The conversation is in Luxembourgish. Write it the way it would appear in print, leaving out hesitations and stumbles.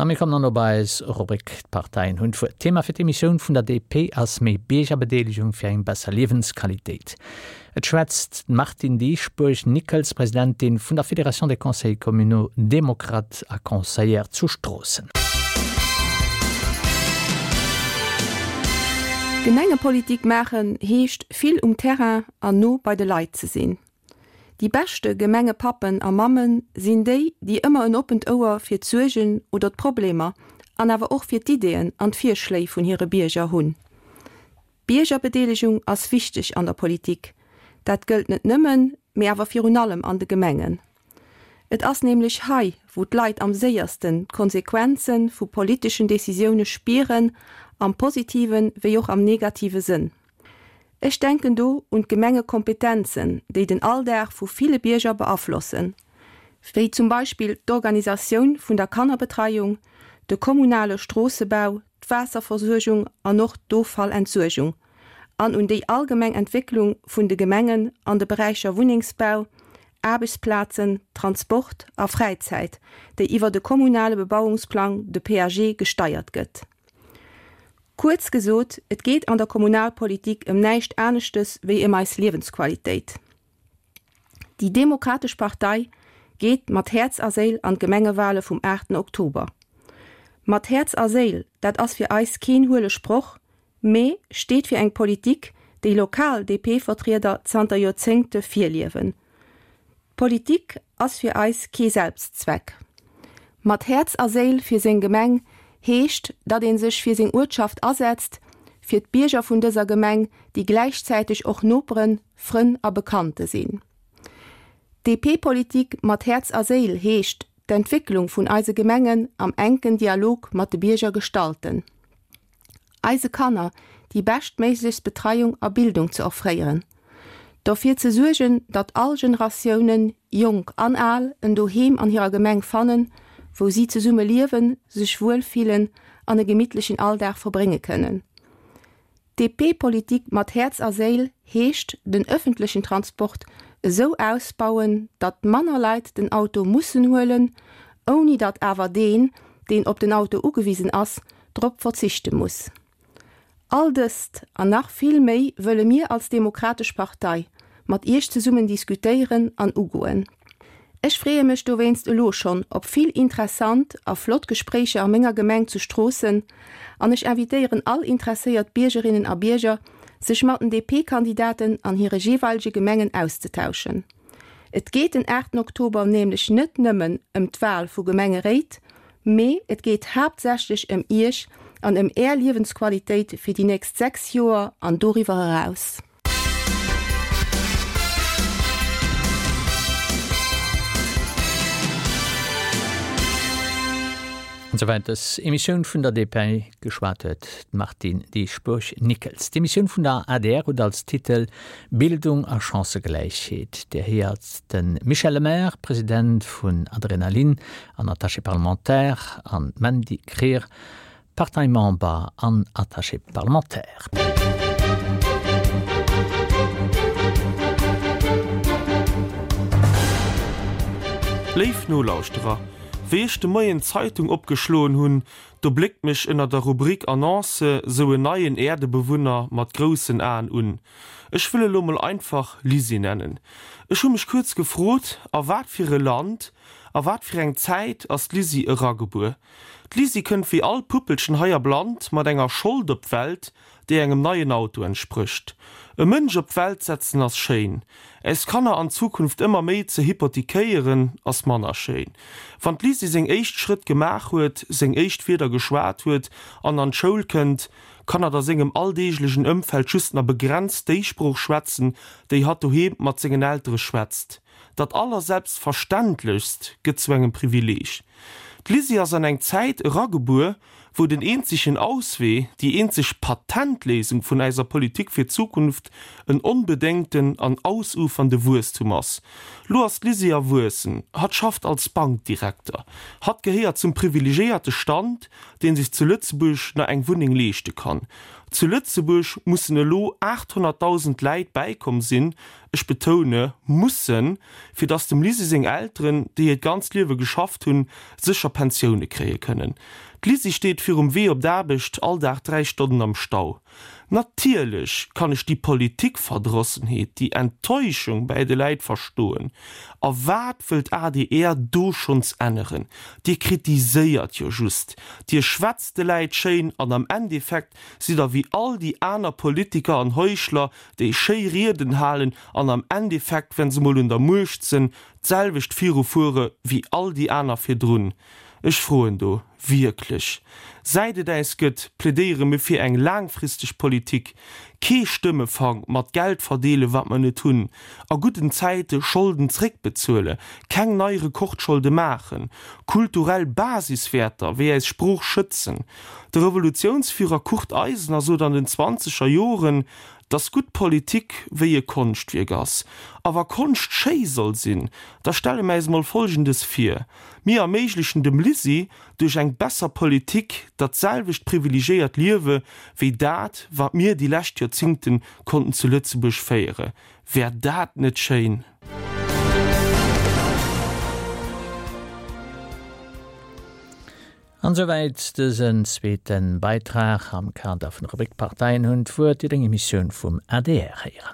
A mir kommen dann op eis Rubrik D'Parteien hunn d'Wuert. D'Thema fir d'Emissioun vun der DP ass méi Biergerbedeelegung fir eng besser Liewensqualitéit. Et schwätzt d'Martine Dieschbourg-Nickels, Presidentin vun der Fédération des Conseils communaux démocrates a Conseillère zu Stroossen. Gemengepolitik maachen heescht vill um Terrain an no bei de Leit ze sinn. Déi beschte Gemengepappen a Mammen sinn déi, déi ëmmer en oppent Ouer fir d'Suergen oder d'Problemer an awer och fir d'Ideeën an d'Virschléi vun hire Bierger hunn. D'Biergerbedeelegung ass wichteg an der Politik. Dat gëllt net nëmmen, mee awer virun allem an de Gemengen. Et ass nämlech hei, wou d'Leit am séiersten d'Konsequenze vu politeschen Decisioune spieren, am positive wéi och am negative Sënn. Ech denken do un d'Gemengekompetenzen, déi den Alldag vu ville Bierger beaflossen, wéi zum Beispill d'Organisatioun vun der Kannerbetreiung, de kommunale Stroossebau, d'Waasserversuergung an och d'Offallentsuergung, an un déi allgemeng Entwécklung vun de Gemengen an de Beräicher Wunnengsbau, Aarbechtsplazen, Transport a Fräizäit, déi iwwer de kommunale Bebauungsplang, de PAG, gesteiert gëtt. Kuerz gesot, et geet an der Kommunalpolitik ëm näischt aneschtes wéi ëm eis Liewensqualitéit. Déi Demokratesch Partei geet mat Häerz a Séil an d'Gemengewale vum 8 Oktober. Mat Häerz a Séil, dat ass fir eis keen huele Sproch, mee steet fir eng Politik, déi lokal DP-Vertrieder zanter Joerzéngte virliewen. D'Politik ass fir eis kee Selbstzweck. Mat Häerz a Séil fir seng Gemeng heescht, datt ee sech fir seng Uertschaft asetzt, fir d'Bierger vun dëser Gemeng, déi gläichzäiteg och Noperen, Frënn a Bekannte sinn. DP-Politik mat Häerz a Séil heescht, d'Entwécklung vun eise Gemengen am enken Dialog mat de Bierger gestalten. Eise Kanner déi beschtméiglechst Betreiung a Bildung ze offréieren, dofir ze suergen, datt all Generatiounen, jonk an al, en Doheem an hirer Gemeng fannen, wou si zesumme liewen, sech wuel fillen an e gemittlechen Alldag verbrénge kënnen. DP-Politik mat Häerz a Séil heescht den ëffentlechen Transport esou ausbauen, datt manner Leit den Auto mussen huelen, ouni datt awer deen, deen op den Auto ugewisen ass, drop verzichte muss. All dëst an nach vill méi wëlle mir als Demokratesch Partei mat Iech zesummen diskutéieren an ugoen. Ech freeë mech dowéinst elo schonn op vill interessant a flott Gespréicher a menger Gemeng zu Stroossen an ech invitéieren all interesséiert Biergerinnen a Bierger, sech mat den DP-Kandidaten an hire jeeweilege Gemengen auszetauschen. Et geet den 8 Oktober nämlech net nëmmen ëm d'Wal vu Gemengeréit, mee et geet haaptsächlech ëm Iech an ëm Är Liewensqualitéit fir déi nächst 6 Joer an doriwwer eraus. An souwäit dës Emissioun vun der DP. Geschwat huet d'Martine Dieschbourg-Nickels. D'Emissioun vun der adr huet als Titel Bildung a Chancëgläichheet. Dir héiert de Michel Lemaire, President vun Adrenalin an Attaché parlementaire, an d'Mandy Krier, Parteimember an Attaché parlementaire. Léif Nolauschterer, wéi ech de Moien d'Zeitung opgeschloen hunn, Do bléckt mech ënner der Rubrik Annonce sou en neien Äerdebewunner mat groussen Aen un. Ech wëll e lo mol einfach Lisi nennen. Ech hu mech kuerz gefrot, a wat fir e Land, a wat fir eng Zäit ass d'Lisi eragebuer? D'Lisi kënnt wéi all Puppelchen hei am Land mat enger Schold op d'Welt, déi engem neien Auto entsprécht. E Mënsch op d'Welt setzen ass schéin. Äis Kanner an Zukunft ëmmer méi ze hypothekéieren ass manner schéin. Wann d'Lisi seng éischt Schrëtt gemaach huet, seng éischt Wierder geschwat huet an an d'Schoul kënnt, kann hatt a sengem alldeeglegen Ëmfeld just na begrenzt déi Sprooch schwätzen, déi hatt doheem mat sengen Eltere schwätzt. Dat Allerselbstverständlechst gëtt zu engem Privileeg. D'Lisi ass an eng Zäit eragebuer, Wou den eenzegen Auswee, déi eenzeg Patentléisung vun äiser Politik fir d'Zukunft en onbedéngten an ausufernde Wuesstum ass. Lo ass d'Lisi erwuessen, hatt schafft als Bankdirekter, hatt gehéiert zum privilegéierte Stand, deen sech zu Lëtzebuerg na eng Wunneng leeschte kann. Zu Lëtzebuerg mussen elo 800.000 Läit bäikomm sinn, ech betoune mussen, fir datt dem Lisi seng Elteren, déi hiert ganzt Liewe geschafft hunn, sécher Pensioune kréie kënnen. D'Lisi steet virum Wee op d'Aarbecht all Dag 3 Stonnen am Stau. Natierlech kann ech déi Politikverdrossenheet, déi Enttäuschung bäi de Läit verstoen. A wat wëll d'ADR do schonns änneren? Dir kritiséiert jo just, Dir schwätzt de Läit schéin an am Endeffekt sidd der wéi all déi aner Politiker an Heuchler, déi schéi Rieden halen an am Endeffekt, wenn se mol un der Muecht sënn, d'selwecht virufuere wéi all déi aner virdrun. Ech froen do wierklech, Säit et äis gëtt, plädéiere mir fir eng laangfristeg Politik, kee Stëmmefang mat Geld verdeele wat mer net hunn, a gudden Zäite Scholden zréckbezuele, keng nei Rekordscholde maachen, kulturell Basiswäerter wéi äis Sprooch schützen. De Revolutiounsführer Kurt Eisner sot an den zwanzeger Joren, dass gutt Politik wéi e Konschtwierk ass. A wa Konscht schéi soll sinn, da stelle mer äis mol Folgendes vir, Mir erméiglechen dem Lisi duerch eng besser Politik dat selwecht privilegéiert Liewe wéi dat, wat mir déi lescht Joerzingten konnten zu Lëtzebuerg féiere. Wär dat net schéin? An esouwäit dësen zweete Beitrag am Kader vun der Rubrik D'Parteien hunn d'Wuert, déi eng Emissioun vum adr héieren.